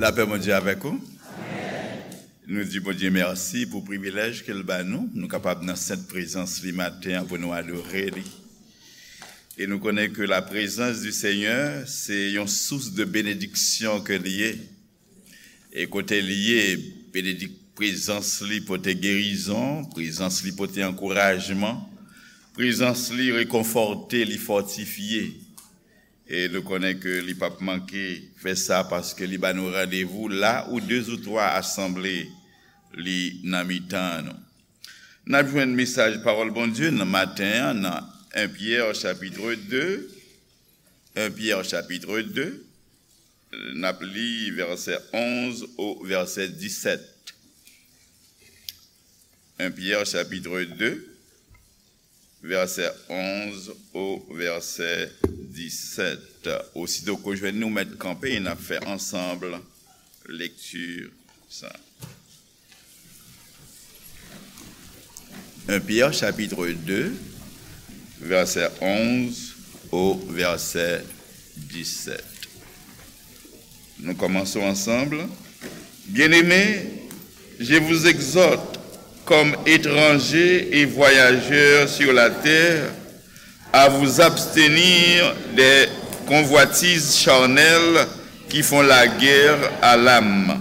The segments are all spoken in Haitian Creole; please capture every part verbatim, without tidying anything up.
Lapè Bondye avèk ou. Nou di Bondye mèsi pou privilèj ke l ba nou, nou kapab nan sent prezans li maten an pou nou adore li. E nou konnen ke la prezans di Senyè se yon sous de benediksyon ke l ye. E kote l ye, benedik-, prezans li pote gerizon, prezans li pote ankourajman, prezans li rekonfòte, li fòtifye. E nou konnen ke li p ap manke fè sa paske li ba nou randevou la ou de ou twa asanble li nan mitan nou. N ap jwenn mesaj pawòl Bondye nan maten an nan en Pyè chapit de, en Pyè chapit de, n ap li vèsè onz o vèsè disèt. En Pyè chapit de, vèsè onz o vèsè disèt. Osito ke w jwenn li, w mèt kanpe e n ap fè ansanm lekti sa. En Pyè chapit de, vèsè onz o vèsè disèt. Nou kòmanse ansanm. Bien-aimés, je vous exhorte, comme étrangers et voyageurs sur la terre, à vous abstenir des convoitises charnelles qui font la guerre à l'âme.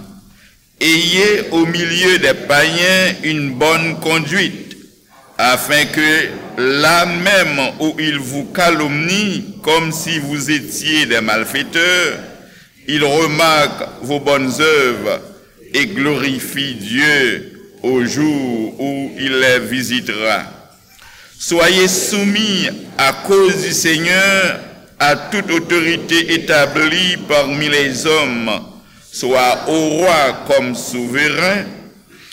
Ayez au milieu des païens une bonne conduite, afin que là même où ils vous calomnient comme si vous étiez des malfaiteurs, ils remarquent vos bonnes œuvres et glorifient Dieu au jour où il les visitera. Soyez soumis à cause du Seigneur à toute autorité établie parmi les hommes, soit au roi comme souverain,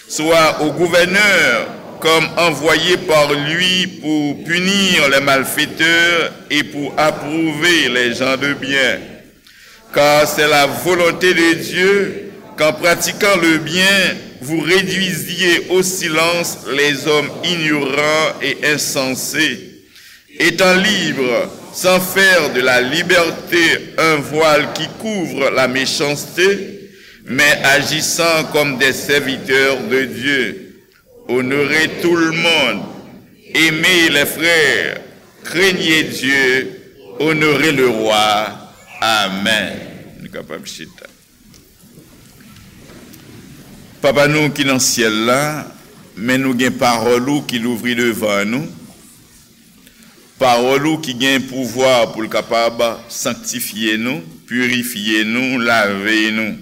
soit au gouverneur comme envoyé par lui pour punir les malfaiteurs et pour approuver les gens de bien. Car c'est la volonté de Dieu qu'en pratiquant le bien, vous réduisiez au silence les hommes ignorants et insensés. Étant libres, sans faire de la liberté un voile qui couvre la méchanceté, mais agissant comme des serviteurs de Dieu. Honorez tout le monde, aimez les frères, craignez Dieu, honorez le roi. Amen. Nou kapab chita. Papa nou ki nan syèl la, men nou gen pawòl ou ki louvri devan nou. Pawòl ou ki gen pouvwa pou l kapab sanktifye nou, pirifye nou, lave nou.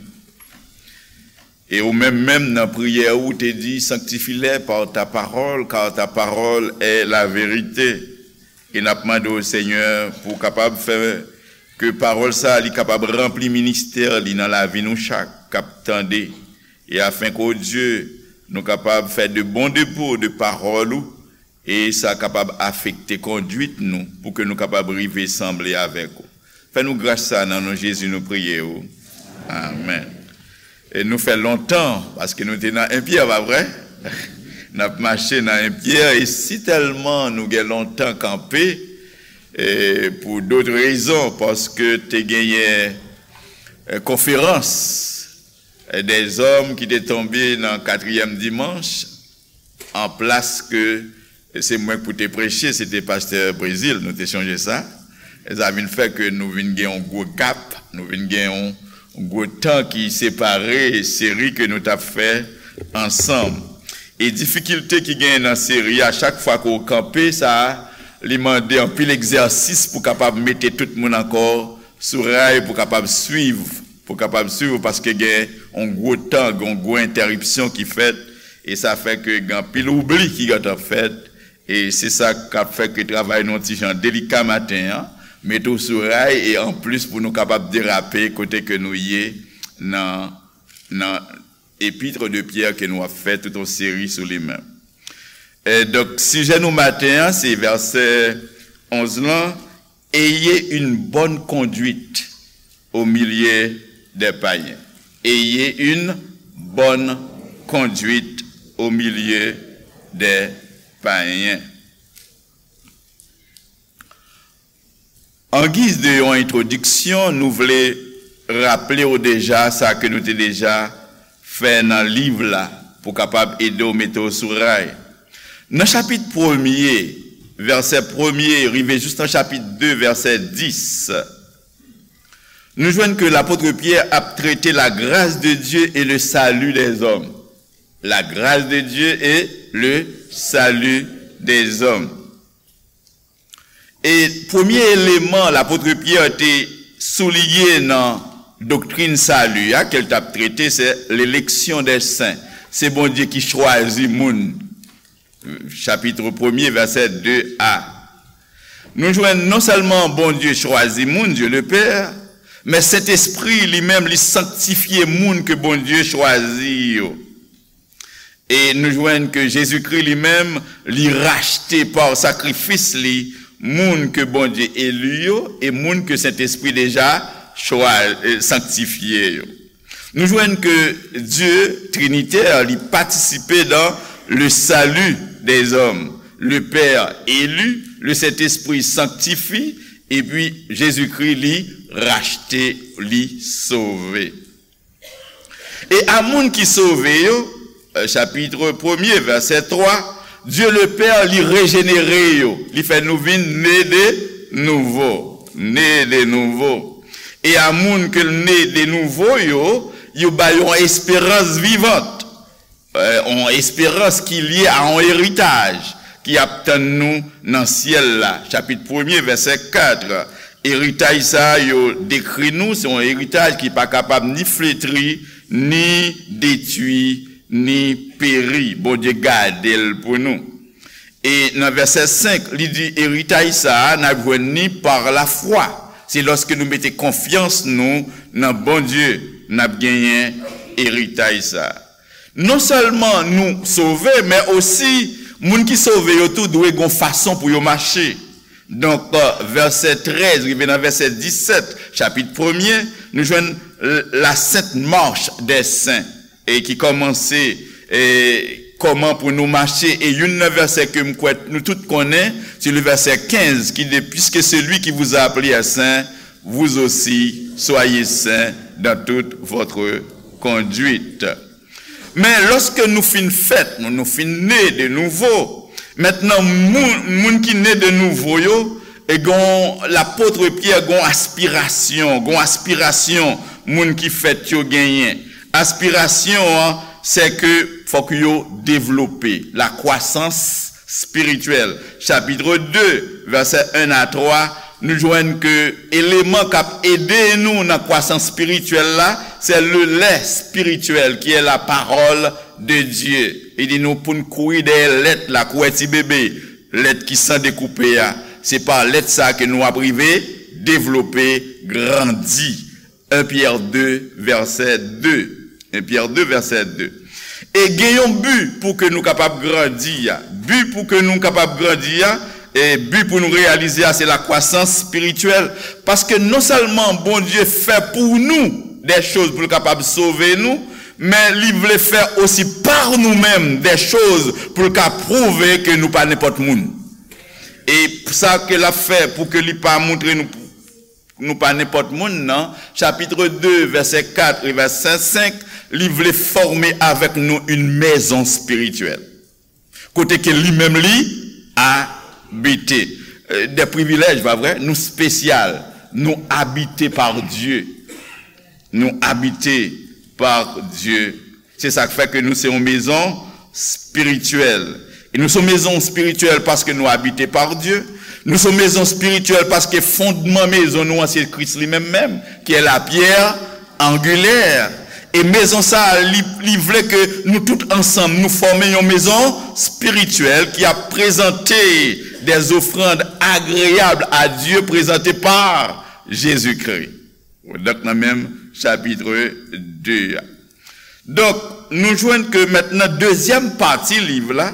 E ou menm, menm nan priyè ou, ou te di, sanctifie-les par ta parole, car ta parole est la vérité. E n ap mande w, Senyè, pou w kapab fè ke pawòl sa a, li kapab ranpli ministè li nan lavi nou chak k ap tande. E afen ke, o Dye, nou kapab fè de bon depo de pawòl ou, e sa kapab afekte kondwit nou pou ke nou kapab rive sanble avèk ou. Fè nou gras sa nan non Jezi nou priye ou. Amèn. E nou fè lontan, paske nou te nan en Pyè, pa vre? N ap mache nan en Pyè, e si tèlman nou gen lontan kanpe, e pou dòt rezon, paske te genyen, e, konferans, e, dèzòm ki te tonbe nan katriyèm dimanch, an plas ke se mwen k pou te preche, se te pastè Brezil, nou te chonje sa. E sa vin fè ke nou vin gen yon gwo gap, nou vin gen yon gwo tan ki separe seri ke nou t ap fè ansanm. E difikilte ki genyen nan seri a, chak fwa ke w kanpe, sa li mande anpil egzèsis pou kapab mete tout moun ankò sou ray, pou kapab swiv, pou kapab swiv, paske gen yon gwo tan, gen yon gwo entèripsyon ki fèt, e sa fè ke gen anpil oubli ki gentan fèt, e se sa k ap fè ke travay nou yon ti jan delika maten an, mete w sou ray, e anplis pou nou kapab derape kote ke nou ye nan, nan Épître de Pierre ke nou ap fè tout yon seri sou li menm. E donk, sijè nou maten an, se vèsè onz lan, Ayez une bonne conduite au milieu des païens. Ayez une bonne conduite au milieu des païens. An giz de yon entwodiksyon, nou vle raple w deja sa ke nou te deja fè nan liv la pou kapab ede w mete w sou ray. Nan chapit premye, vèsè premye, rive jis nan chapit de, vèsè dis, nou jwenn ke lapot Pyè ap trete la grâce de Dieu et le salut des hommes. La grâce de Dieu et le salut des hommes. E premye eleman lapot Pyè te souliye nan doktrin sali a, ke l t ap trete, se l'élection des saints. Se Bondye ki chwazi moun. Chapit premye, vèsè de a. Nou jwenn non sèlman Bondye chwazi moun, Dieu le Père, men Sentespri li menm li sanktifye moun ke Bondye chwazi yo. E nou jwenn ke Jezikri li menm, li rachte pa sakrifis li moun ke Bondye eli yo e moun ke Sentespri deja chwa-, eh, sanktifye yo. Nou jwenn ke Dye Trinitè, li patisipe dans le salut des hommes. Le Père élu, le Saint-Esprit sanctifie, epi Jezikri, li rachte, li sove. E a moun ki sove yo, eh, chapit premye, vèsè twa, Dye le Pè, li rejenere yo, li fè nou vin ne de nouvo, ne de nouvo. E a moun ke l ne de nouvo yo, yo ba yo yon esperans vivant, eh, yon esperans ki lye a yon eritaj ki ap tann nou nan syèl la. Chapit premye, vèsè kat. Eritaj sa a yo dekri nou, se yon eritaj ki pa kapab ni fletri, ni detwi, ni peri. Bondye gade l pou nou. E nan vèsè senk, li di, eritaj sa a, n ap jwenn ni par la foi. Se lòske nou mete konfyans nou nan Bondye, n ap genyen eritaj sa a. Non sèlman nou sove, men osi, moun ki sove yo tou dwe gon fason pou yo mache. Donk, eh, vèsè trèz rive nan vèsè disèt, chapit premye, nou jwenn, eh, la Sainte Marche des Saints, e ki kòmanse, eh, kòman pou nou mache. E youn nan vèsè ke m kwè nou tout konnen, se le vèsè kenz ki di, puisque celui qui vous a appelé est saint, vous aussi soyez saints dans toute votre conduite. Men lòske nou fin fèt, nou, nou fin ne de nouvo, mentnan moun, moun ki ne de nouvo yo, e gon lapot Pyè, gon aspirasyon, gon aspirasyon moun ki fèt yo genyen. Aspirasyon an, se ke fòk yo devlope, la croissance spirituelle. Chapit de, vèsè en a twa, nou jwenn ke eleman k ap ede nou nan kwasans espirityèl la, se le lait spirituel, qui est la parole de Dieu. Li di nou pou n kouri dèyè lèt la, kou wè ti bebe, lèt ki san dekoupe a. Se pa lèt sa ke nou ap rive devlope, grandi. En Pyè de, vèsè de. En Pyè de, vèsè de. E gen yon bi pou ke nou kapab grandi a. Bi pou ke nou kapab grandi a, e bi pou nou reyalize a, se la kwasans espirityèl. Paske non sèlman Bondye fè pou nou de choz pou l kapab sove nou, men li vle fè osi pa nou menm de choz pou l ka pwouve ke nou pa nenpòt moun. E sa ke l ap fè pou ke li pa montre nou nou pa nenpòt moun nan, chapit de, vèsè kat e vèsè senk, li vle fòme avèk nou yon mezon espirityèl. Kote ke li menm li abite. Euh, de privilèj, pa vre? Nou espesyal. Nou abite pa Dye. Nou abite pa Dye. Se sa k fè ke nou se yon mezon espirityèl. E nou se yon mezon espirityèl paske nou abite pa Dye. Nou se yon mezon espirityèl paske fondman mezon nou an se Kris li menm menm, ki è la pyè angilè. E mezon sa a, li, li vle ke nou tout ansanm, nou fòme yon mezon espirityèl ki ap prezante des offrandes agréables à Dieu, prezante pa Jezikri. Donk, nan menm chapit de a. Donk, nou jwenn ke mentnan dezyèm pati liv la,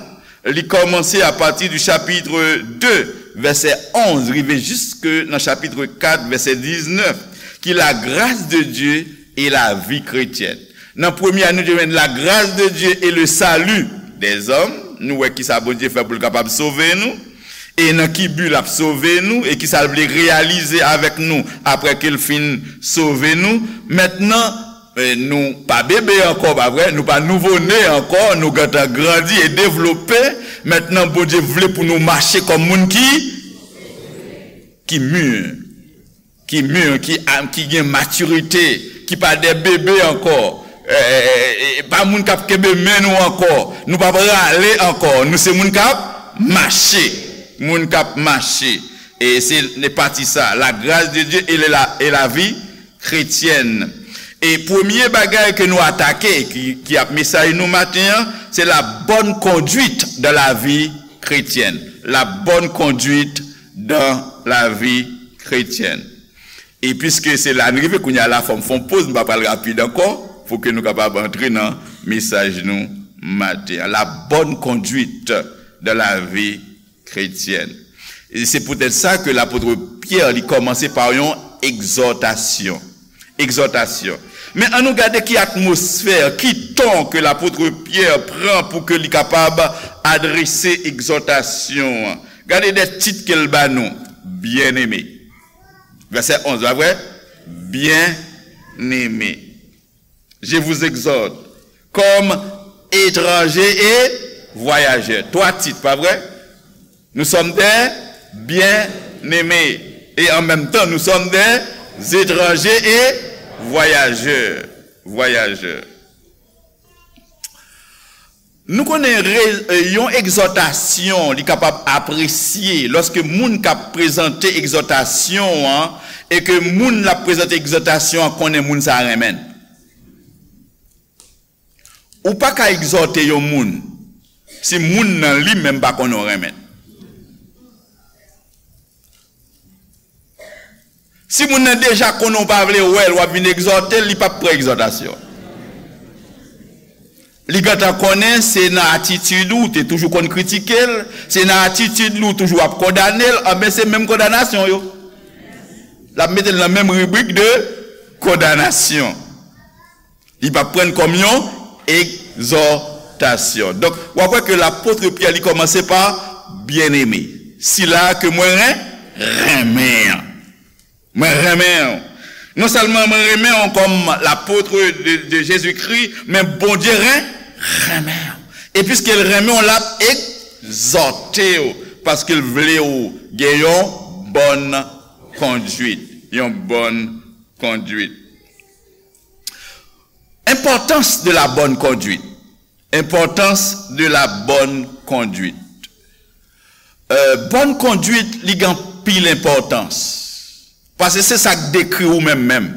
li kòmanse apati di chapit de, vèsè onz, rive jiske nan chapit kat, vèsè diznèf, ki la grâce de Dieu et la vie chrétienne. Nan premye a, nou te jwenn la grâce de Dieu et le salut des hommes. Nou wè kisa Bondye fè pou l kapab sove nou. E nan ki bi l ap sove nou, e ki sa l vle reyalize avèk nou apre ke l fin sove nou. Mentnan, eh, nou pa bebe ankò, pa vre? Nou pa nouvo ne ankò, nou gentan grandi e devlope. Mentnan, Bondye vle pou nou mache kòm moun ki, ki mi, ki mi, ki, ki gen matirite, ki pa de bebe ankò. Eh, eh, eh, eh, pa moun k ap kenbe men nou ankò. Nou pa prale ankò. Nou se moun k ap mache. Moun k ap mache. E se, se pati sa, la grâce de Dieu et la, et la vie chrétienne. E premye bagay ke nou atake, ki, ki ap mesaj nou maten an, se la bonne conduite dans la vie chrétienne. La bonne conduite dans la vie chrétienne. E piske se la n rive kounye a la, fò m fè yon poz, m pa pral rapid ankò, pou ke nou kapab antre nan mesaj nou maten an. La bonne conduite dans la vie chrétienne. E se poutèt sa ke lapot Pyè, li kòmanse pa yon egzòtasyon. Egzòtasyon. Men ann nou gade ki atmosfè, ki ton ke lapot Pyè pran pou ke li kapab adrese egzòtasyon an. Gade de tit ke l ba nou. Byeneme. Vèsè onz, pa vre? Byeneme. Je vous exhorte, comme étrangers et voyageurs. Twa tit, pa vre? Nous sommes des bien-aimés. Et en même temps, nous sommes des étrangers et voyageurs. Voyageurs. Nou konnen re-, e, yon egzòtasyon, li kapab apresye lòske moun k ap prezante egzòtasyon an, e ke moun l ap prezante egzòtasyon an konnen moun sa a renmen l. Ou pa ka egzòte yon moun si moun nan li menm pa konnen w renmen l. Si moun nan deja konnen w pa vle wè l, w ap vin egzòte l, li p ap pran egzòtasyon. Li gentan konnen se nan atitid ou, ou te toujou konn kritike l, se nan atitid li ou toujou ap kondane l, anben se menm kondanasyon yo. L ap mete l nan menm ribrik de kondanasyon. Li p ap pran l kòm yon egzòtasyon. Donk, w ap wè ke lapot Pyè, li kòmanse pa byeneme, sila ke mwen ren-, renmen an. Mwen renmen w. Non sèlman mwen renmen w kòm lapot de, de Jezikri, men Bondye ren-, renmen w. E piske l renmen w, l ap egzòte w, paske l vle w gen yon bòn kondwit. Yon bòn kondwit. Importance de la bonne conduite. Importance de la bonne conduite. Euh, bòn kondwit, li gen anpil enpòtans. Paske se sa k dekri ou menm menm.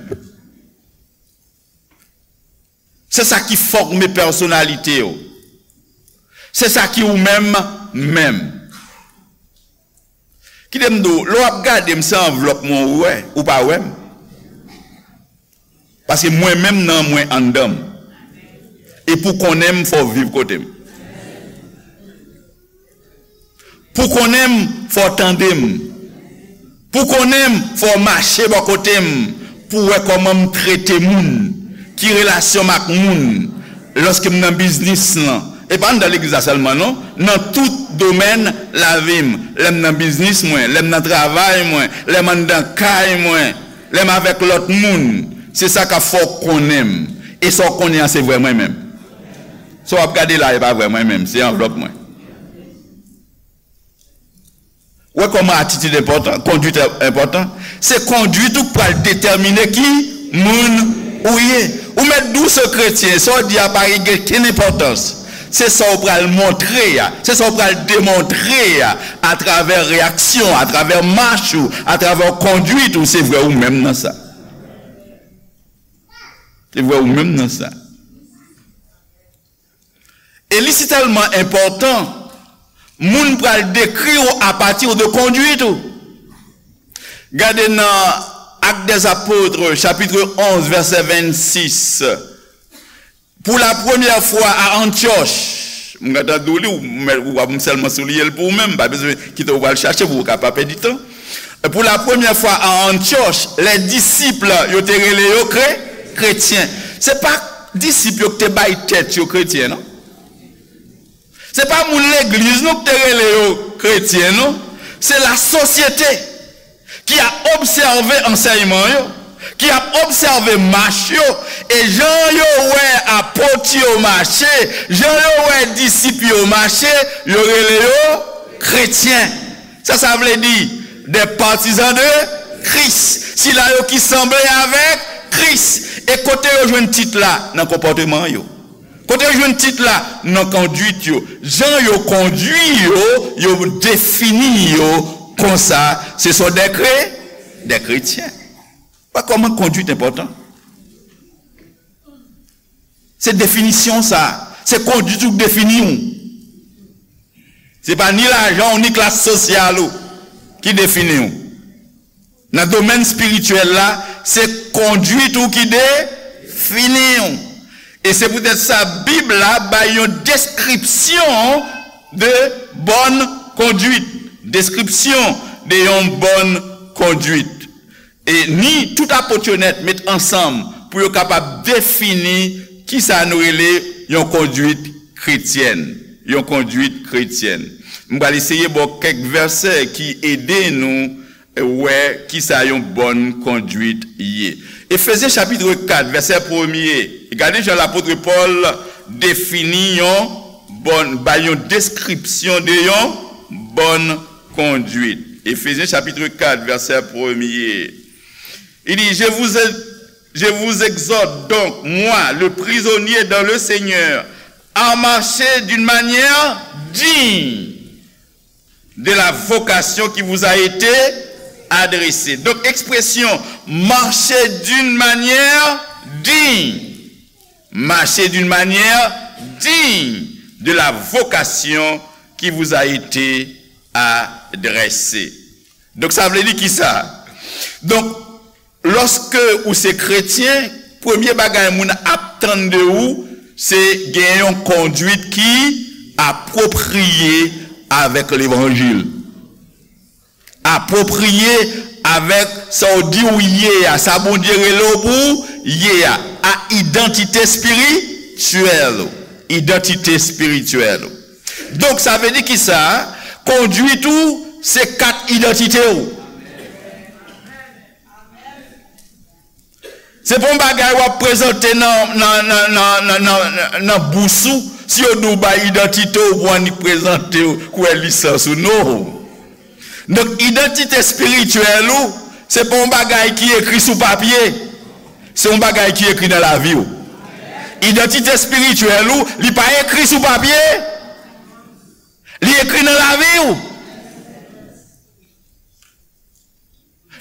Se sa ki fòme pèsonalite w. Se sa ki ou menm menm. Kite m di w, lè w ap gade m, se anvlòp mwen ou wè, ou pa wè m. Paske mwen menm nan mwen anndan m. E pou konnen m, fò w viv kote m. Pou konnen m, fò w tande m. Pou konnen m, fò w mache bò kote m, pou w wè kòman m trete moun, ki relasyon m ak moun, lòske m nan biznis lan. E pa anndan legliz la sèlman, non. Nan tout domèn lavi m. Lè m nan biznis mwen, lè m nan travay mwen, lè m anndan kay mwen, lè m avèk lòt moun. Se sa k ap fè w konnen m. E sa w konnen an, se vrè mwen menm. Sa w ap gade la, e pa vrè mwen menm, se anvlòp mwen. Wè kòman atitid enpòtan, kondwit enpòtan. Se kondwit ou k pral detèmine ki moun ou ye. Ou mèt di w se kretyen, sa w di a pa gen kenn enpòtans. Se sa w pral montre a, se sa w pral demontre a, atravè reyaksyon, atravè mach ou, atravè kondwit ou, se vre ou menm nan sa. Se vre ou menm nan sa. E li si tèlman enpòtan, moun pral dekri w apati de kondwit ou. Gade nan Actes des Apôtres, chapitre onze, verset vingt-six. Pour la première fois à Antioche, m gentan di w li, ou, ou ap sèlman souliye l pou ou menm, pa bezwen kite w pral chache pou w ka pa pèdi tan. Pour la première fois à Antioche, les disciples, yo te rele yo kre-, kretyen. Se pa disip yo ki te bay tèt yo kretyen, non. Se pa moun legliz, non, ki te rele yo kretyen, non. Se lasosyete ki ap obsève ansèyman yo, ki ap obsève mach yo, e jan yo wè apot yo mache, jan yo wè disip yo mache, yo rele yo kretyen. Sa sa vle di? Des partisans de Christ. Sila yo ki sanble avèk Kris. E kote yo jwenn tit la? Nan konpòteman yo. Kote yo jwenn tit la? Nan kondwit yo. Jan yo kondwi yo, yo defini yo konsa. Se sò dè kre, dè kretyen. Wè kòman kondwit enpòtan. Se definisyon sa. Se kondwit ou k defini w. Se pa ni lajan w, ni klas sosyal ou ki defini w. Nan domèn espirityèl la, se kondwit ou ki defini w. E se poutèt sa, Bib la bay yon deskripsyon de bòn kondwit. Deskripsyon de yon bòn kondwit. E ni tout apot yo nèt met ansanm pou yo kapab defini kisa nou rele yon kondwit kretyèn. Yon kondwit kretyèn. M pral eseye ba w kèk vèsè ki ede nou wè kisa yon bòn kondwit ye. Efezyen chapit kat, vèsè premye. Gade jan lapot Pòl defini yon bòn, bay yon deskripsyon de yon bòn kondwit. Efezyen chapit kat, vèsè premye. Il dit, je vous, je vous exhorte donc, moi, le prisonnier dans le Seigneur, à marcher d'une manière digne de la vocation qui vous a été adressée. Donc, ekspresyon marcher d'une manière digne. Marcher d'une manière digne de la vocation qui vous a été adressée. Donk, sa vle di kisa? Donk, lòske ou se kretyen, premye bagay moun ap tann de ou, se gen yon kondwit ki apwopriye avèk levanjil. Apwopriye avèk sa w di w ye a, sa Bondye rele w pou w ye a, a idantite espirityèl ou. Idantite espirityèl ou. Donk, sa vle di kisa? Kondwit ou, se kat idantite w. Se pa yon bagay w ap prezante nan, nan, nan, nan, nan, nan, nan bous ou. Si yo di w bay idantite w, ou pou annik prezante w, kwè lisans ou. Non. Donk, idantite espirityèl ou, se pa yon bagay ki ekri sou papye. Se yon bagay ki ekri nan lavi w. Idantite espirityèl ou, li pa ekri sou papye. Li ekri nan lavi w.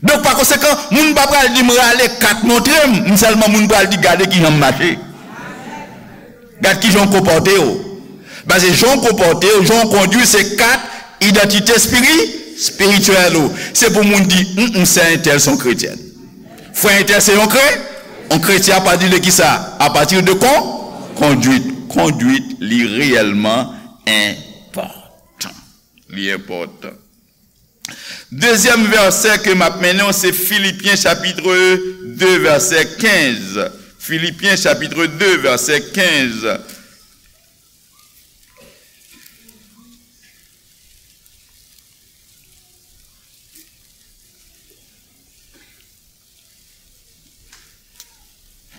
Donk, pa konsekan, moun pa pral di m rale kat montre m, m sèlman moun pral di gade kijan m mache. Gad kijan w konpòte w. Paske jan w konpòte w, jan w kondwi, se kat idantite espiri-, espirityèl ou. Se pou moun di, "Hum, hum, sè entèl se yon kretyèn. Frè entèl se yon kre-, yon kretyen apati de kisa? Apati de kon-, kondwit." Kondwit, li reyèlman enpòtan. Li enpòtan. Dezyèm vèsè ke m ap mennen w, se Filipyen chapit de, vèsè kenz. Filipyen chapit de, vèsè kenz.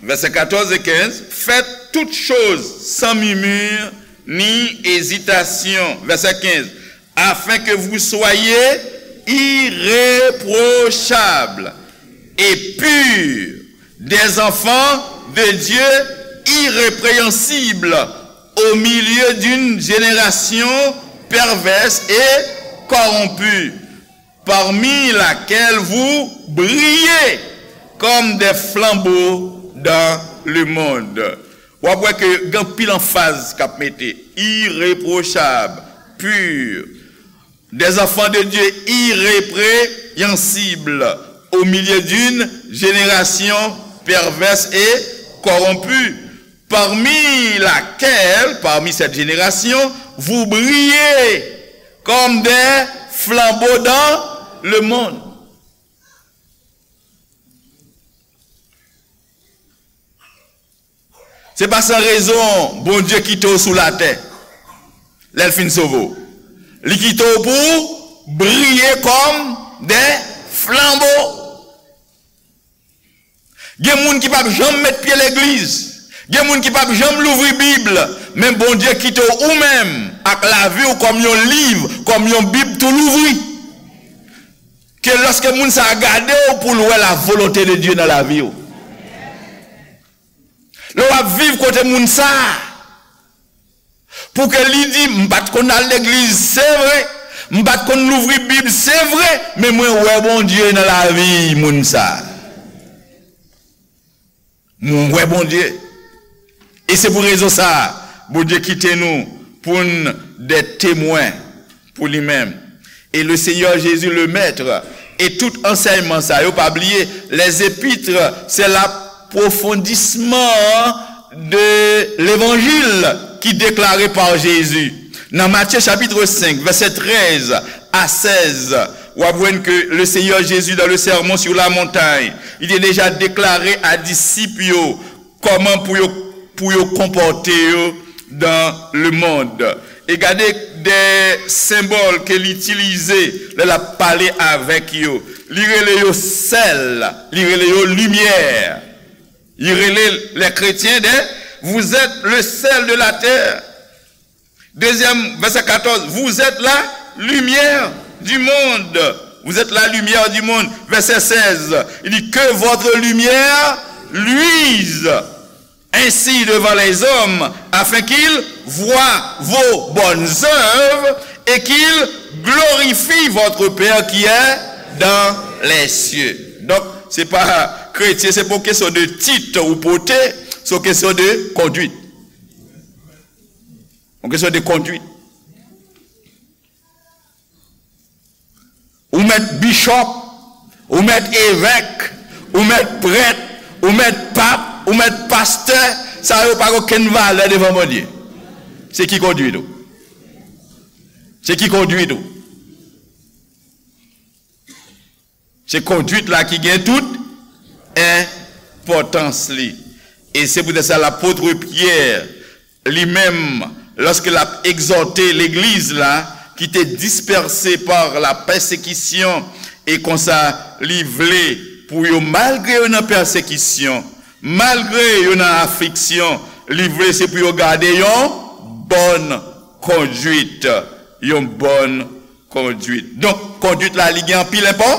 Vèsè katòz e kenz, faites toutes choses sans murmure ni hésitation. Vèsè kenz, afin que vous soyez irréprochables et purs, des enfants de Dieu irrépréhensibles au milieu d'une génération perverse et corrompue, parmi laquelle vous brillez comme des flambeaux dans le monde. W ap wè ke gen anpil anfaz k ap mete, irréprochables, purs, des enfants de Dieu irrépréhensibles au milieu d'une génération perverse et corrompue, parmi laquelle, parmi cette génération, vous brillez comme des flambeaux dans le monde. Se pa san rezon Bondye kite w sou latè lè l fin sove w. Li kite w pou w briye kòm de flanbo. Gen moun ki p ap janm met pye legliz. Gen moun ki p ap janm louvri Bib. Men Bondye kite w ou menm ak lavi w kòm yon liv, kòm yon Bib tou louvri. Ke lòske moun sa a gade w pou l wè la volonte de Dye nan lavi w. Lè w ap viv kote moun sa a, pou ke li di, "M pa t konn al legliz, se vre. M pa t konn louvri Bib, se vre. Men mwen wè Bondye nan lavi moun sa a. Mwen wè Bondye." E se pou rezon sa a, Bondye kite nou pou n de temwen pou li menm. Et le Seigneur Jésus, le Maître, et tout ansèyman sa yo, pa bliye, les épîtres, c'est l'approfondissement de l'évangile qui déclaré par Jésus. Nan Matye chapit senk, vèsè trèz a sèz, w ap jwenn ke le Seigneur Jésus, dans le Sermon sur la montagne, li te deja deklare a disip yo kòman pou yo, pou yo konpòte yo dans le monde. E gade de senbòl ke li itilize lè l ap pale avèk yo. Li rele yo sèl, li rele yo limyè. Li rele les chrétiens de, vous êtes le sel de la terre. Deuxième, verset quatorze, vous êtes la lumière du monde. Vous êtes la lumière du monde. Verset seize, il dit, que votre lumière luise ainsi devant les hommes, afin qu'ils voient vos bonnes œuvres et qu'ils glorifient votre Père qui est dans les cieux. Donk, se pa kretyen, se pa yon kesyon de tit ou pote, se yon kesyon de kondwit. Yon kesyon de kondwit. Ou mèt bishop, ou mèt evèk, ou mèt prèt, ou mèt pap, ou mèt pastè, sa yo pa gen okenn valè devan Bondye. Se ki kondwit ou? Se ki kondwit ou? Se kondwit la ki gen tout enpòtans li. E se poutèt sa lapot Pyè, li menm, lòske l ap egzòte legliz la, ki te dispèse pa la pèsekisyon, e konsa li vle pou yo, malgre yo nan pèsekisyon, malgre yo nan afliksyon, li vle se pou yo gade yon bòn kondwit, yon bòn kondwit. Donk, kondwit la, li gen anpil enpò-,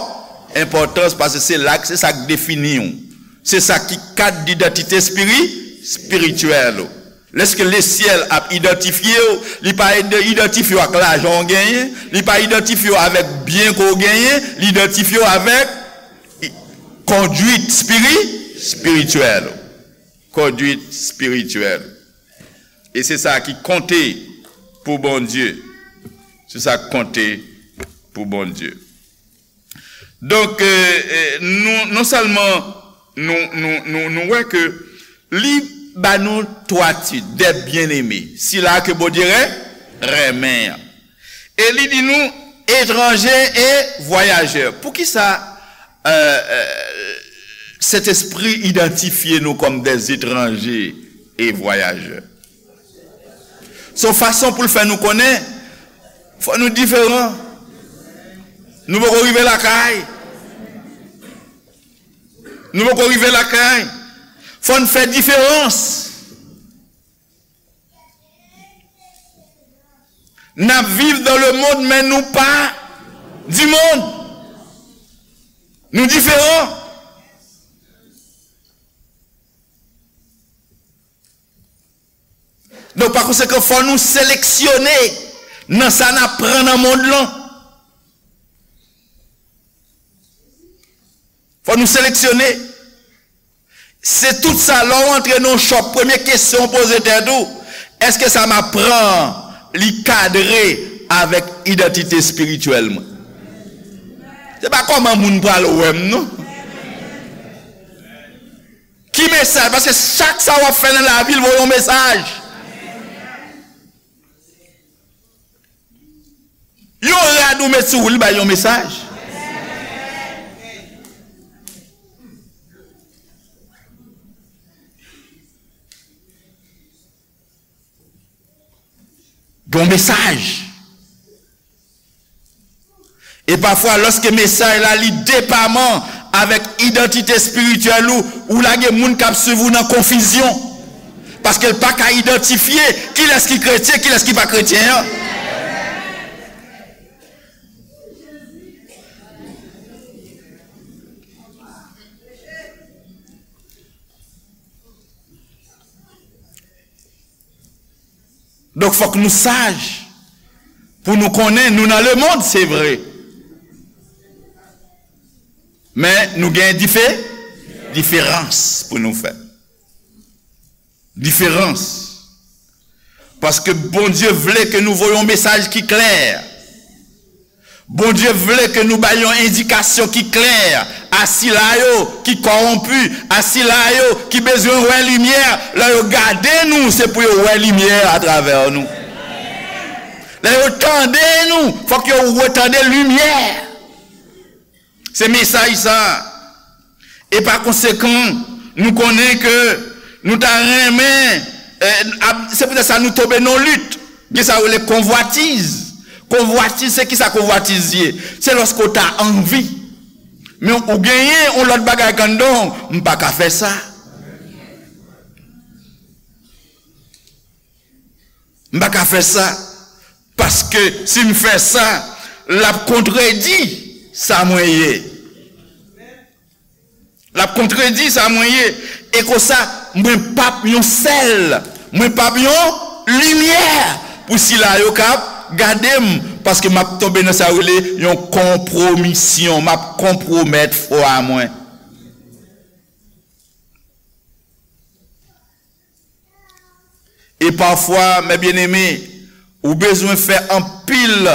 enpòtans, paske se la, se sa k defini w. Se sa ki kad didantite espiri-, espirityèl ou. Lèske lesyèl ap idantifye w, li pa id-, idantifye w ak lajan w genyen, li pa idantifye w avèk byen ke w genyen, li idantifye w avèk i-, kondwit espiri-, espirityèl ou. Kondwit espirityèl. E se sa ki konte pou Bondye. Se sa ki konte pou Bondye. Donk, e, e, nou, non sèlman nou, nou, nou, nou wè ke li ba nou twa tit, des bien-aimés, sila ke Bondye ren-, renmen an. E li di nou, etranje e vwayajè. Poukisa, e, e, Sentespri idantifye nou kòm des étrangers et voyageurs? Se yon fason pou l fè nou konnen, fò nou diferan. Nou poko rive lakay. Nou poko rive lakay. Fò n fè diferans. N ap viv dans le monde, men nou pa du monde. Nou diferan. Donk, pa konsekan, fò nou seleksyone nan sa n ap pran nan mond lan. Fò nou seleksyone. Se tout sa, lè w antre nan yon shop, premye kesyon w poze tèt ou, èske sa m ap pran an, li kadre avèk idantite espirityèl mwen? Se pa kòman moun pral wè m, non. Ki mesaj? Paske chak sa w ap fè nan lavi, l voye yon mesaj. Yon rad ou met sou ou, li bay yon mesaj. Yon mesaj. E pafwa, lòske mesaj la li depaman avèk idantite espirityèl ou, ou lage moun k ap swiv ou nan konfizyon. Paske l pa ka idantifye kilès ki kretyen, kilès ki pa kretyen an. Donk, fòk nou saj pou nou konnen nou nan lemonn, se vre. Men nou gen dife, diferans pou nou fè. Diferans. Paske Bondye vle ke nou voye yon mesaj ki klè. Bondye vle ke nou bay yon endikasyon ki klè a sila yo ki kòwonpi, a sila yo ki bezwen wè limyè. Lè yo gade nou, se pou yo wè limyè atravè nou. Lè yo tande nou, fòk yo retande limyè. Se mesaj sa a. E pa konsekan, nou konnen ke nou ta renmen, eh, ap- se poutèt sa nou tonbe nan lit. Gen sa yo rele konvwatiz. Konvwatiz, se ki sa konvwatiz ye? Se lòske w ta anvi. Men ou genyen yon lòt bagay k anndan w, m pa ka fè sa. M pa ka fè sa. Paske si m fè sa, l ap kontredi sa mwen ye. L ap kontredi sa mwen ye. E konsa, mwen p ap yon sèl. Mwen p ap yon limyè pou sila yo k ap gade m. Paske m ap tonbe nan sa yo rele yon konpwomisyon. M ap konpwomèt fwa mwen. E pafwa, mè byeneme, ou bezwen fè anpil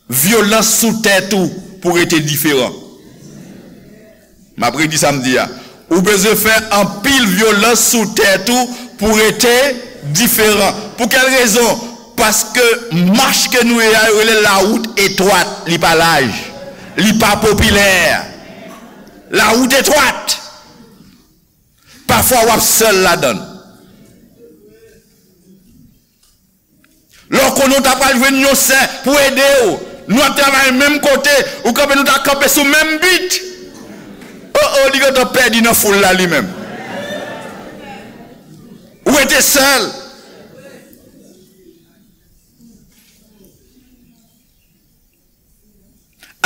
vyolans sou tèt ou pou rete diferan. M ap redi sa m di a. Ou bezwen fè anpil vyolans sou tèt ou pou rete diferan. Pou kèl rezon? Paske mach ke nou ye a, yo rele lawout etwat, li pa laj, li pa popilè. Lawout etwat. Pafwa w ap sèl ladan l. Lè w konnen w ta pral jwenn yon sè pou ede w, nou ap travay menm kote, ou kanpe, nou ta kanpe sou menm bit. O, o, li gentan pèdi nan foul la li menm. Ou rete sèl.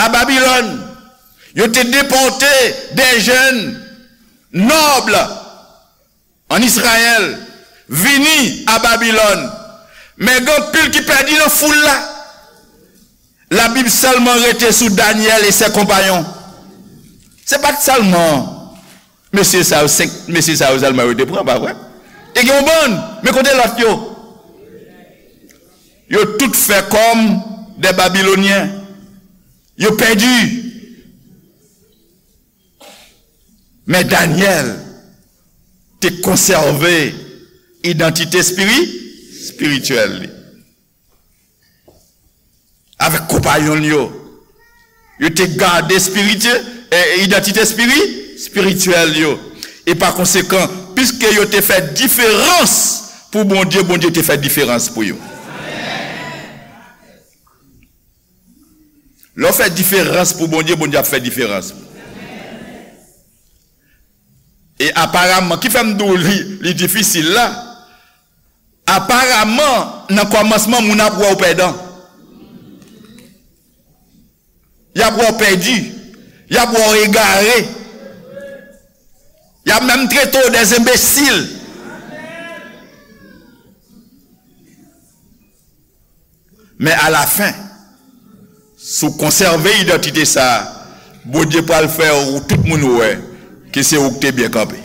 A Babilòn, yo te depòte de jèn nòb an Izrayèl vini a Babilòn. Men gen anpil ki pèdi nan foul la. Labib sèlman rete sou Danyèl e sè konpayon. Se pa t sèlman mesye sa yo, senk mesye sa yo sèlman yo te pran, pa vre? Te gen yon bann, men kote lòt yo? Yo tout fè kòm de Babilonyen. Yo pèdi. Men Danyèl te konsève idantite espiri-, espirityèl li. Avèk konpayon l yo, yo te gade espirityè, eh, idantite espiri-, espirityèl yo. E pa konsekan, piske yo te fè diferans pou Bondye, Bondye te fè diferans pou yo. Lè w fè diferans pou Bondye, Bondye ap fè diferans. E aparaman, ki fè m di w li, li difisil la, aparaman, nan kòmansman, moun ap wè w pèdan. Y ap wè w pèdi. Y ap wè w egare. Y ap menm trete w de enbesil. Men alafen, si w konsève idantite sa a, Bondye pral fè w tout moun wè ke se ou k te byen kanpe.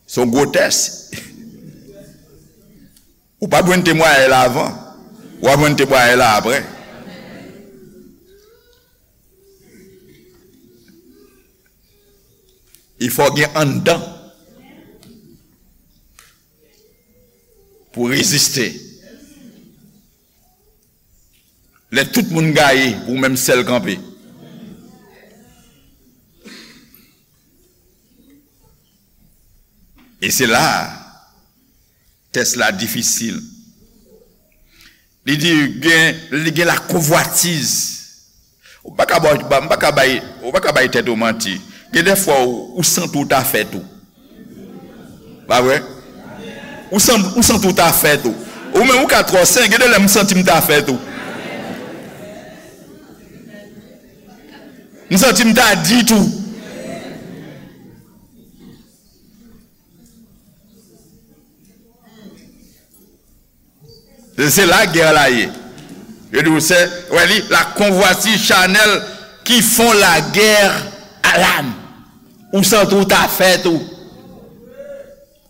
Se yon gwo tès. Ou pa t jwenn temwayaj la avan. W ap jwenn temwayaj la apre. Il fò gen anndan pou reziste. Lè tout moun gaye, pou ou menm sèl kanpe. E se la a, tès la difisil. Li di, gen, li gen lakonvwatiz. Ou pa ka ba-, ba-, m pa ka bay, ou pa ka bay tèt ou manti. Gen de fwa ou, ou santi ou ta fè tou. Pa vre? Ou san-, ou santi ou ta fè tou. Ou menm ou ka twò sen, gen de lè m santi m ta fè tou. M santi m ta di tou. Se, se lagè la ye. Yo di w se, wè li, la convoitise charnelle qui font la guerre à l'âme. Ou santi ou ta fè tou.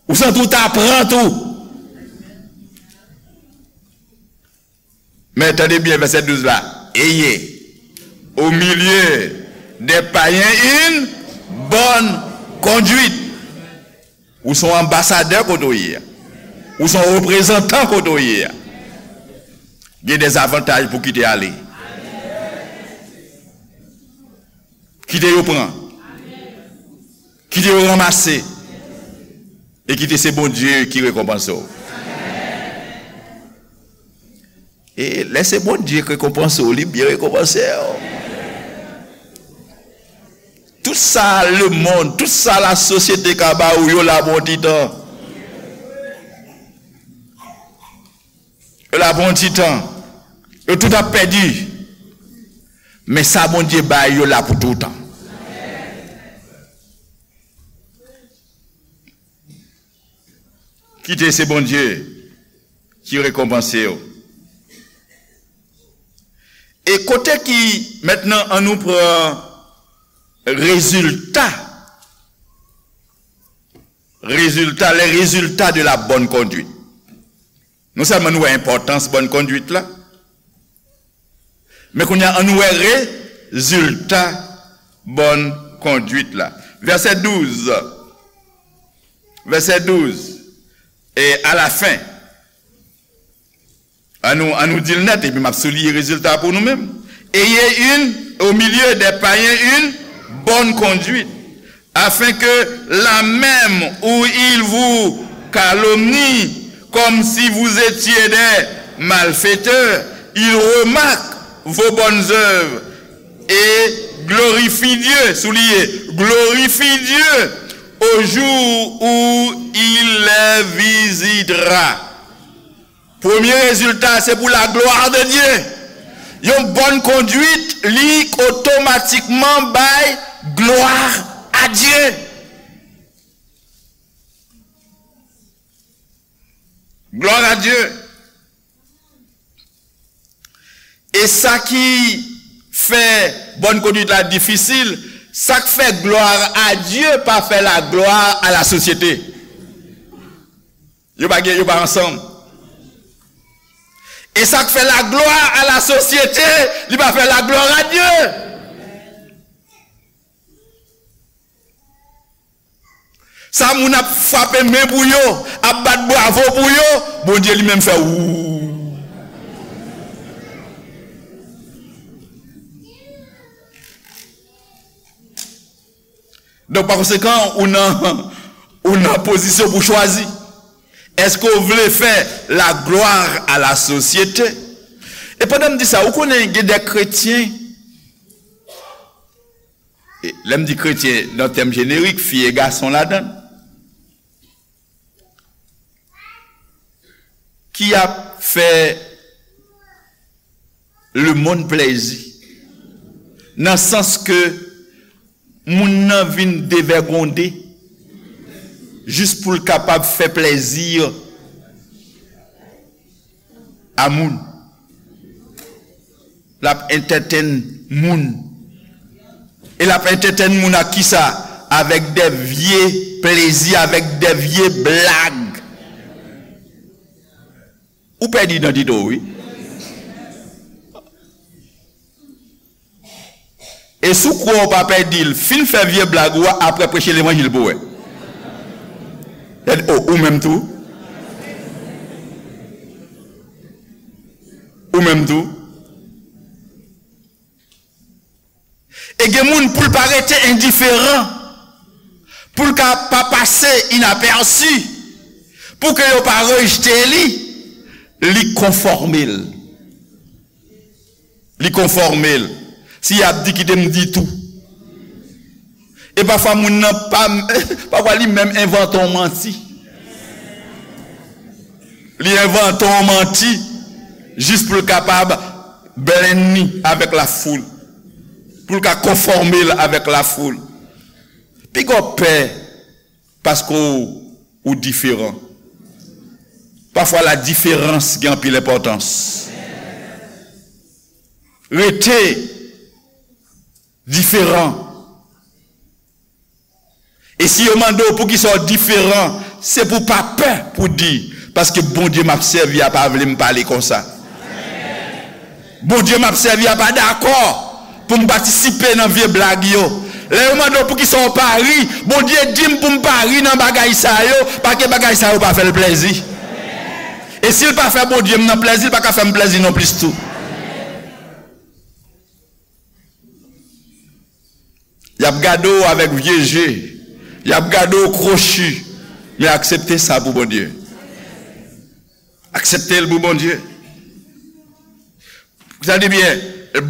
Ou santi ou ta pran tou. Men tande byen vèsè douz la. Ayez au milieu des païens une bonne conduite. Ou se yon anbasadè kote w ye a. Ou se yon reprezantan kote w ye a. Gen de zavantaj pou kite ale. Kite yo pran. Kite yo ranmase. E kite se Bondye ki rekonpanse w. E lè se Bondye k rekonpanse w, li byen rekonpanse w. Tout sa lemonn, tout sa lasosyete ka ba ou, yo la pou yon ti tan. Yo la pou yon ti tan. Yo tout ap pèdi. Men sa Bondye bay, yo la pou toutan. Kite se Bondye ki rekonpanse w. E kote ki, mentnan, an nou pran rezilta, rezilta, les résultats de la bonne conduite. Non sèlman nou wè enpòtans bòn konduit la, men kounye a, an nou wè rezilta bòn konduit la. Vèsè douz. Vèsè douz. E à la fin. An nou, an nou di l nèt, epi m ap souliye rezilta pou nou menm. Ayez une, au milieu des païens, une bonne conduite, afin que là même où ils vous calomnient, comme si vous étiez des malfaiteurs, ils remarquent vos bonnes œuvres et glorifient Dieu, souliye, glorifient Dieu au jour où il les visitera. Premye rezilta, se pou la gloire de Dieu. Yon bòn konduit, li otomatikman bay gloire à Dieu. Gloire à Dieu. E sa ki fè bòn konduit la difisil, sa k fè gloire à Dieu pa fè la gloire à la société. Yo pa gen, yo pa ansanm. E sa k fè la gloire à la société, li pa fè la gloire à Dieu. Sa moun ap frape men pou yo, ap bat bravo pou yo, Bondye li menm fè wou. Donk, pa konsekan, ou nan, ou nan pozisyon pou chwazi. Èske w vle fè la gloire à la société? E pandan m di sa, ou konnen gen de kretyen, e lè m di kretyen nan tèm jenerik, fi e gason ladan l, ki ap fè lemonn plèzi, nan sans ke moun nan vin devègonde jis pou l kapab fè plèzi a moun. L ap entertain moun. E l ap entertain moun ak kisa? Avèk de vye plezi, avèk de vye blag. Ou pèdi idantite w, wi. E si w kwè w pa pèdi l, fin fè vye blag ou a, apre preche levanjil pou w wè. Gade, o, ou menm tou. Ou menm tou. E gen moun pou l pa rete endiferan, pou l ka pa pase inapèsi, pou ke yo pa rejte li, li konfòme l. Li konfòme l. Si y ap di, kite m di tou. E pafwa moun nan pa, pafwa li menm envante yon manti. Li envante yon manti jis pou l kapab blend li avèk lafoul. Pou l ka konfòme l avèk lafoul. Piga w pè paske w, ou diferan. Pafwa la diferans gen anpil enpòtans. Rete diferan. E si yo mande w poukisa w diferan, se pou w pa pè pou w di, paske Bondye m ap sèvi a pa vle m pale konsa. Bondye m ap sèvi a pa dakò pou m patisipe nan vye blag yo. Lè yo mande w poukisa w pa ri, Bondye di m pou m pa ri nan bagay sa yo, paske bagay sa yo pa fè l plèzi. E si l pa fè Bondye m nan plèzi, l pa ka fè m plèzi non plis tou. Y ap gade w avèk vye je. Y ap gade w kwochi. Men aksepte sa pou Bondye. Aksepte l pou Bondye. Tande byen,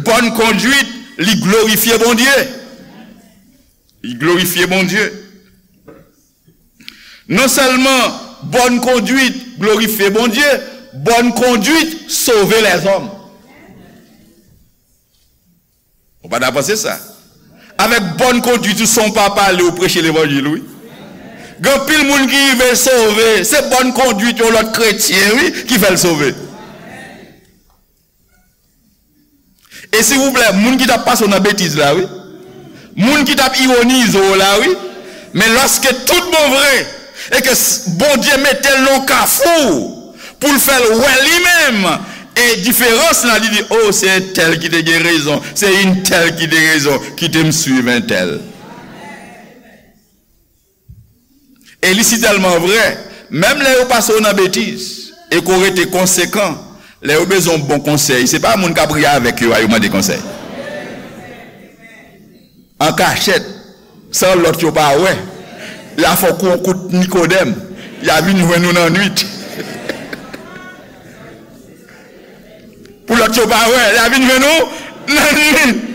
bòn kondwit, li glorifye Bondye. Li glorifye Bondye. Non sèlman bòn kondwit glorifye Bondye, bòn kondwit sove lèzòm. Ou pa ta panse sa? Avèk bòn kondwit ou san w pa pale, ou preche levanjil, wi. Gen anpil moun ki rive sove, se bòn kondwit yon lòt kretyen, wi, ki fè l sove. E silvouplè, moun ki t ap pase w nan betiz la, wi. Moun ki t ap ironize w la, wi. Men lòske tout bon vre, e ke s-, Bondye mete l nan kafou pou l fè l wè li menm, e diferans lan, li di, o, se entèl ki te gen rezon, se entèl ki te rezon, kite m swiv entèl. E li sitèlman vre, menm lè yo pase w nan betiz, e ke w rete konsekan, lè yo bezwen yon bon konsèy, se pa moun k ap ri avèk yo a yo mande konsèy. An kachèt, san lòt yo pa wè, y a fè w kou yon kout Nikodèm, y a vin jwenn ou nan nwit. Pou lòt yo pa wè, y a vin jwenn ou nan nwit.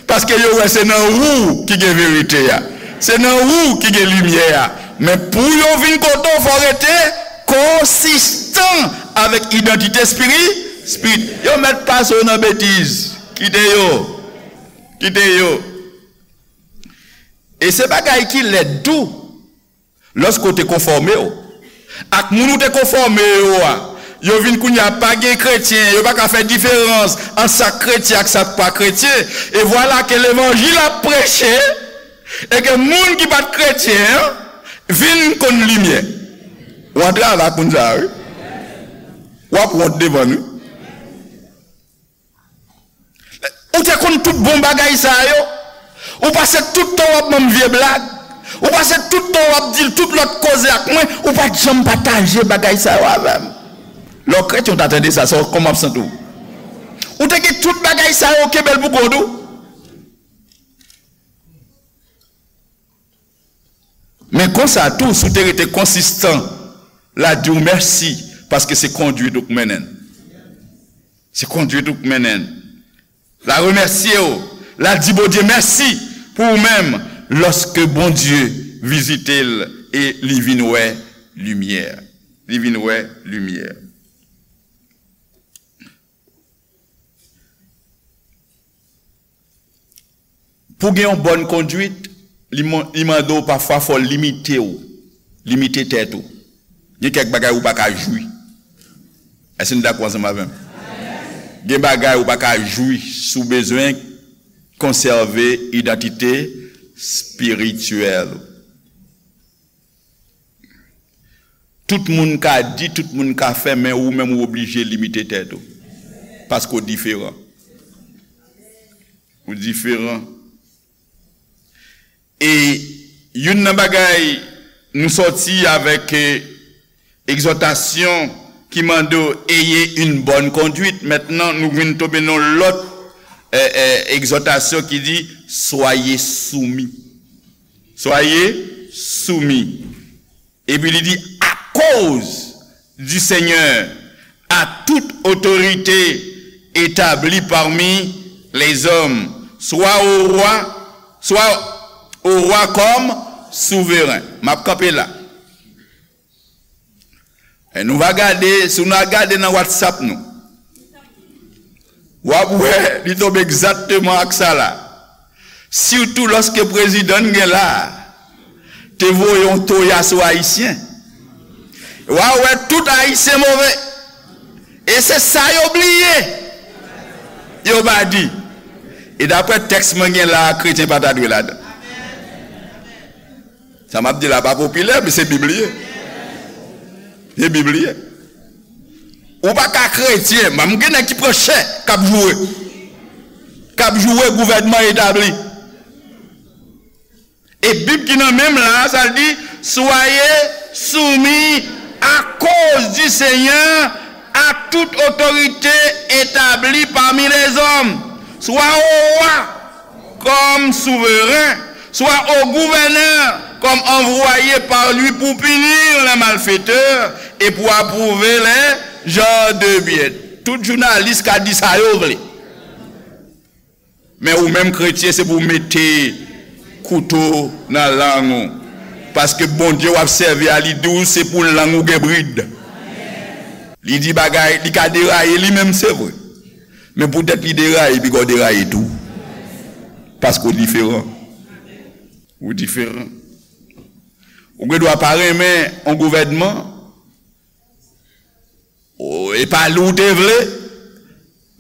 Paske yo wè se nan ou ki gen verite a. Se nan ou ki gen limyè a. Men pou yo vin kote w, fò w rete konsistan avèk idantite espiri-, espirit. Yo mèt pase w nan betiz. Kite yo. Kite yo. E se bagay ki lèd tou. Lòske w te konfòme w ak moun ou te konfòme yo a, yo vin kounye a pa gen kretyen, yo pa ka fè diferans ant sa k kretyen ak sa k pa kretyen. E vwala ke levanjil ap preche, e ke moun ki pa t kretyen an vin konn limyè. W antre avèk moun sa a, wi. W ap wont devan l, wi. Ou te konn tout bon bagay sa yo. Ou pase tout tan w ap ban m vye blag. Ou pase tout tan w ap di tout lòt koze ak mwen. Ou pa t janm pataje bagay sa yo avè m. Lè w kretyen, w ta tande sa, sa w, kòman w ap santi w? Ou te gen tout bagay sa yo, kenbe l pou kont ou. Men konsa tou, si w te rete konsistan, l a di w mèsi, paske se kondwit ou k mennen l. Se kondwit ou k mennen l. L a remèsye w, l a di Bondye mèsi pou ou menm, lòske Bondye vizite l e li vin wè limyè. Li vin wè limyè. Pou gen yon bòn kondwit, li man-, li mande w pafwa fò w limite w, limite tèt ou. Gen kèk bagay ou pa ka jwi. Èske nou dakò ansanm avè m? Gen bagay ou pa ka jwi si w bezwen konsève idantite espirityèl ou. Tout moun ka di, tout moun ka fè, men ou menm ou oblije limite tèt ou. Paske w diferan. Ou diferan. E youn nan bagay nou sòti avèk, eh, egzòtasyon ki mande w ayez une bonne conduite. Mentnan, nou vin tonbe nan lòt, eh, eh, egzòtasyon ki di, soyez soumis. Soyez soumis. Epi li di, à cause du Seigneur, à toute autorité établie parmi les hommes, soit au roi, soit au roi comme souverain. M ap kanpe la. E nou va gade, si nou a gade nan WhatsApp nou, w ap wè li tonbe egzakteman ak sa la. Sitou lòske prezidan n gen la a te voye yon toya sou Ayisyen. W a wè tout Ayisyen move. E se sa yo bliye. Yo pa di. E daprè tèks mwen gen la a, kretyen pa ta dwe ladan. Sa m ap di la pa popilè, men se Bib li ye. Se Bib li ye. Ou pa ka kretyen, m gen nèg ki pran chè, k ap joure. K ap joure gouvènman etabli. E Bib ki nan men m la, sa l di, soyez soumis à cause du Seigneur à toute autorité établie parmi les hommes, soit au roi comme souverain, soit au gouverneur comme envoyé par lui pour punir les malfaiteurs et pour approuver les gens de bien. Tout jounalis ka di sa yo vle. Men ou menm kretyen, se pou w mete kouto nan lang ou. Paske Bondye w ap sèvi a, li di w se pou lang ou gen brid. Li di bagay, li ka deraye li menm, se vre. Men poutèt li deraye, piga w deraye tou. Paske w diferan. Ou diferan. Ou gen dwa pa renmen yon gouvènman, o, e pa li w te vle,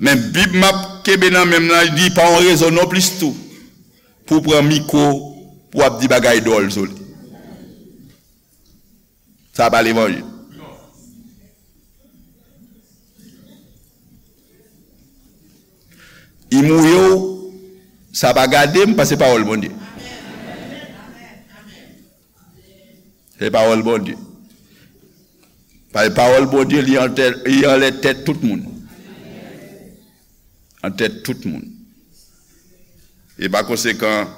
men Bib m ap kenbe nan men m nan, li di pa yon rezon non plis tou pou w pran mikwo, pou w ap di bagay dwòl sou li. Sa pa levanjil. I mouye w, sa pa gade m, paske se pawòl Bondye. Se pawòl Bondye. Pa-, pawòl Bondye, li anlè, li anlè tèt tout moun. An tèt tout moun. E pa konsekan,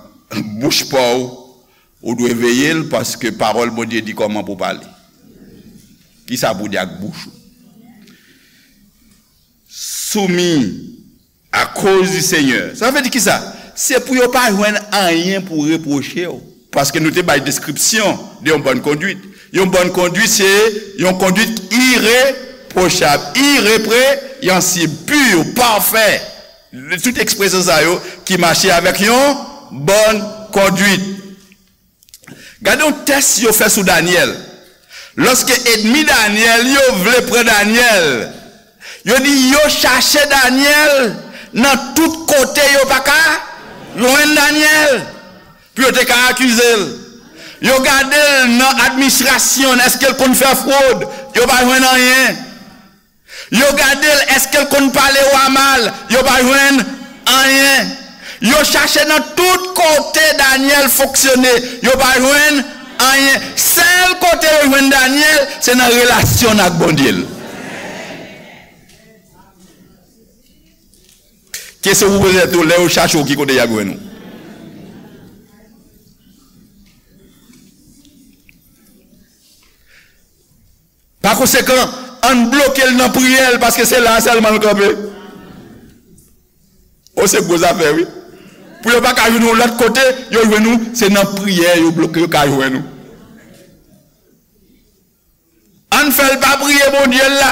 bouch pa w, ou dwe veye l, paske pawòl Bondye di kòman pou w pale. Kisa pou w di ak bouch ou? Soumis à cause du Seigneur. Sa vle di kisa? Se pou yo pa jwenn anyen pou repwoche w. Paske nou te bay deskripsyon de yon bòn konduit. Yon bòn konduit, se yon konduit irepwochab, ireprensyib, pur, pafè. Tout ekspresyon sa yo ki mache avèk yon bòn konduit. Gade yon tès yo fè sou Danyèl. Lòske ènmi Danyèl yo vle pran Danyèl, yo di yo chache Danyèl nan tout kote, yo pa ka jwenn Danyèl pou yo te ka akize l. Yo gade l nan administrasyon l, èske l konn fè fwod? Yo pa jwenn anyen. Yo gade l, èske l konn pale wa mal? Yo pa jwenn anyen. Yo chache nan tout kote Danyèl fonksyone, yo pa jwenn anyen. Sèl kote yo jwenn Danyèl, se nan relasyon l ak Bondye l. Kesyon pou poze tèt ou, lè yo chache w, ki kote y ap jwenn ou? Pa konsekan, ann bloke l nan priyè l, paske se la a sèlman l kanpe. O, se gwo zafè, wi. Pou yo pa ka jwenn ou lòt kote, yo jwenn ou, se nan priyè yo bloke, yo ka jwenn ou. Ann fè l pa priye Bondye l la.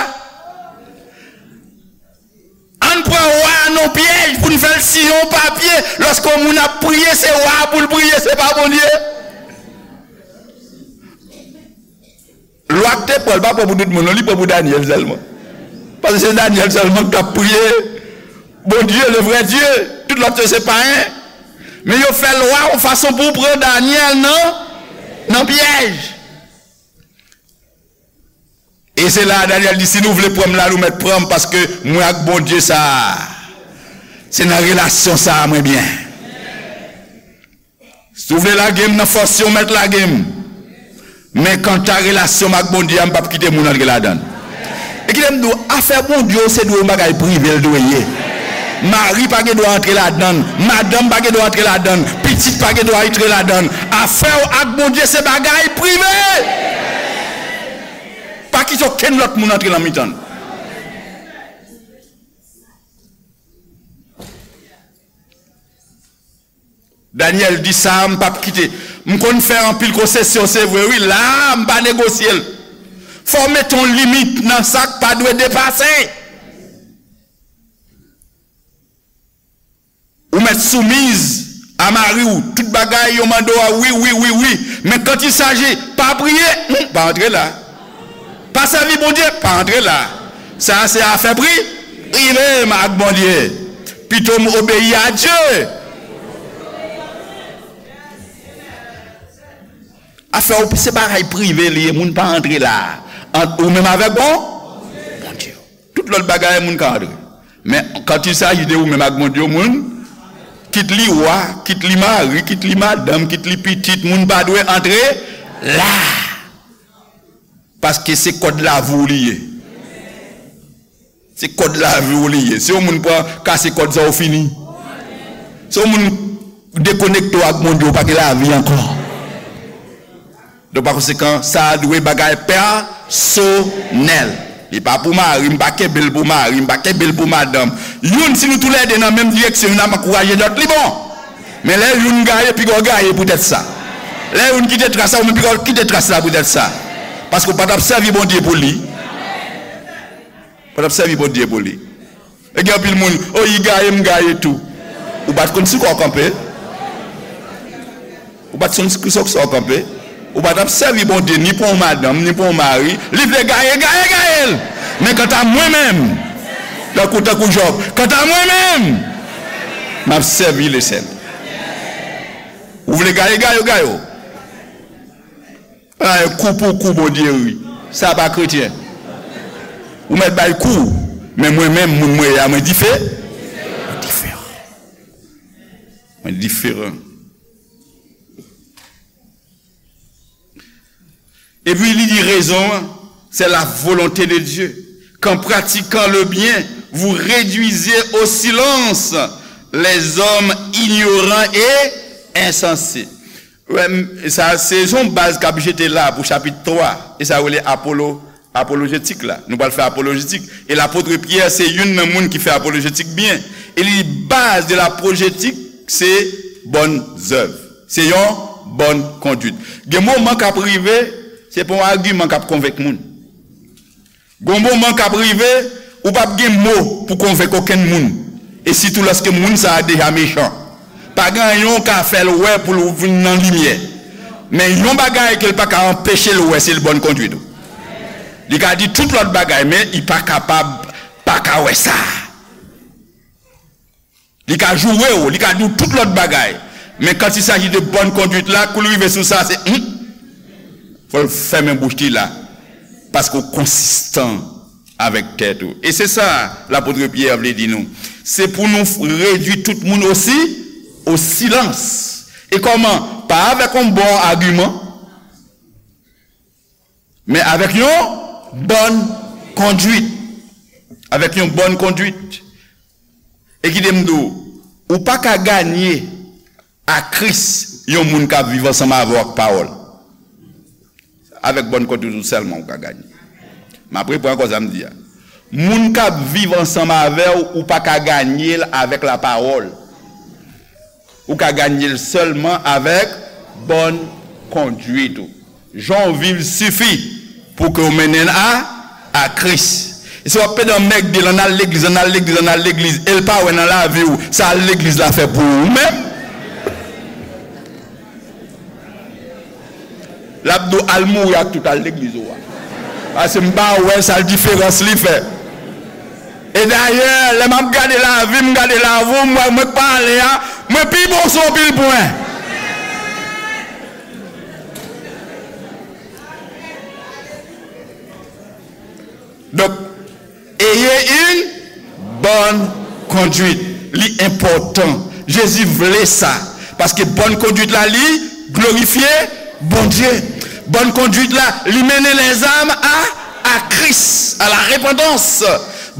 Ann pran wa a nan pyèj pou n fè l siyen yon papye. Lòske yon moun ap priye, se wa a pou l priye, se pa Bondye. Lwa k te pran, l pa pran pou tout moun, non, li pran pou Danyèl sèlman. Paske se Danyèl sèlman k t ap priye Bondye, le vrai Dieu. Tout lòt yo se payen. Men yo fè lwa yon fason pou pran Danyèl nan, nan pyèj. E se la a Danyèl di, si nou vle pran m la, nou mèt pran m, paske mwen ak Bondye sa a, se nan relasyon sa a mwen byen. Si w vle lage m nan fòs yo, w mèt lage m. Men kanta relasyon m ak Bondye a, m p ap kite moun antre ladan l. E kite m di w, afè Bondye w se dwe yon bagay prive l dwe ye. Mari pa gen dwa antre ladan l, madanm pa gen dwa antre ladan l, pitit pa gen dwa antre ladan l. Afè w ak Bondye se bagay prive. Pa kite okenn lòt moun antre nan mitan l. Daniel di sa, m p ap kite. M konn fè anpil konsesyon, se vre, wi, la, m pa negosye l. Fò w mete yon limit nan sa k pa dwe depase. Ou mèt soumiz a mari w, tout bagay yo mande w a, wi, wi, wi, wi. Men quand il s'agit, pa priye, hmm, pa antre la. Pa sèvi Bondye, pa antre la. Sa a se afè pri, prive m ak Bondye. Pito m obeyi a Dye. Afè w, se bagay prive li ye, moun pa antre la. Ant ou menm avèk bon, Bondye. Tout lòt bagay, moun ka antre. Men, quand il s'agit de ou menm ak Bondye, moun, kit li wa, kit li mari, kit li madanm, kit li pitit, moun pa dwe antre la. Paske se kòd lavi w li ye. Se kòd lavi w li ye. Si yon moun pran, kase kòd sa, ou fini. Si yon moun dekonekte w ak Bondye, ou pa gen lavi ankò. Donk, pa konsekan, sa a dwe bagay pèsonèl. Li pa pou mari, m pa kenbe l pou mari, m pa kenbe l pou madanm. Youn, si nou toulède nan menm direksyon, youn ap ankouraje lòt, li bon. Men lè youn gaye, piga w gaye poutèt sa. Lè youn kite tras la, ou menm piga w kite tras la poutèt sa. Paske w pa t ap sèvi Bondye pou li. Ou pa t ap sèvi Bondye pou li. E gen anpil moun, o, li gaye, m gaye tou. Ou pa t konn sou kwa w kanpe. Ou pa t konn sou kwa w kanpe. Ou pa t ap sèvi Bondye ni pou yon madanm, ni pou yon mari. Li vle gaye, gaye, gaye l. Men kanta mwen menm, tankou, tankou Jòb, kanta mwen menm, m ap sèvi Lesenn. Ou vle gaye, gaye, gaye. Ay, kou pou kou, Bondye ri. Sa pa kretyen. Ou mèt bay kou, men mwen menm, moun mwen ye a, mwen dife-, mwen diferan. Mwen diferan. Epi li di rezon an, c'est la volonté de Dieu, qu'en pratiquant le bien, vous réduisez au silence les hommes ignorants et insensés. Wè, m, sa, se yon baz k ap jete la pou chapit twa, e sa rele apolo, apolojetik la. Nou pral fè apolojetik. E lapot Pyè se youn nan moun ki fè apolojetik byen. E li di baz de lapolojetik, se bòn zèv. Se yon bòn konduit. Gen moman k ap rive, se pa yon agiman k ap konvenk moun. Gon moman k ap rive, ou p ap gen mo pou konvenk okenn moun. E sitou lòske moun sa a deja mechan. Pa gen anyen w ka fè l wè pou l vin nan limyè. Men yon bagay ke l pa ka anpeche l wè, se l bòn konduit ou. Li ka di tout lòt bagay, men li pa kapab pa ka wè sa. Li ka joure w, li ka di w tout lòt bagay. Men quand il s'agit de bonne conduite la, kou l rive sou sa, se, hmm, fò l fèmen bouch li la. Paske w konsistan avèk tèt ou. E se sa lapot Pyè vle di nou. Se pou nou redui tout moun osi, o silans. E kòman? Pa avèk yon bon agiman, men avèk yon bòn konduit. Avèk yon bòn konduit. E kite m di w, ou pa ka ganye a Kris yon moun k ap viv ansanm avè w ak pawòl. Avèk bòn konduit ou sèlman ou ka ganye. M ap reprann ankò sa m di a. Moun k ap viv ansanm avè w, ou pa ka ganye l avèk lapawòl. Ou ka ganye l sèlman avèk bòn konduit ou. Jan w viv sifi pou ke w mennen l a, a Kris. E si w ap pede anmègde l, ann al legliz, ann al legliz, ann al legliz, e l pa wè nan lavi w, sa al legliz la fè pou ou menm? L ap di w al mouri ak tout al legliz ou a. Paske m pa wè sa l diferans li fè. E dayè, lè m ap gade lavi m, gade lavi w, m wè mwen k pale a, mwen pi bon sou anpil pwen. Donk, ayez une bonne conduite. Li enpòtan. Jezi vle sa. Paske bòn konduit la, li glorifye Bondye. Bòn konduit la, li mennen lèzòm a, a Kris, a la repantans.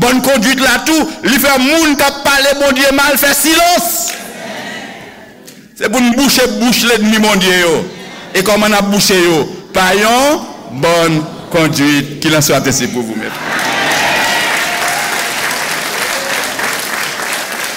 Bòn konduit la tou, li fè moun k ap pale Bondye mal fè silans. Se pou n bouche bouch lènmi Bondye yo. E kòman n ap bouche yo? Pa yon bòn konduit. Qu'il en soit ainsi pour vous, mes frères.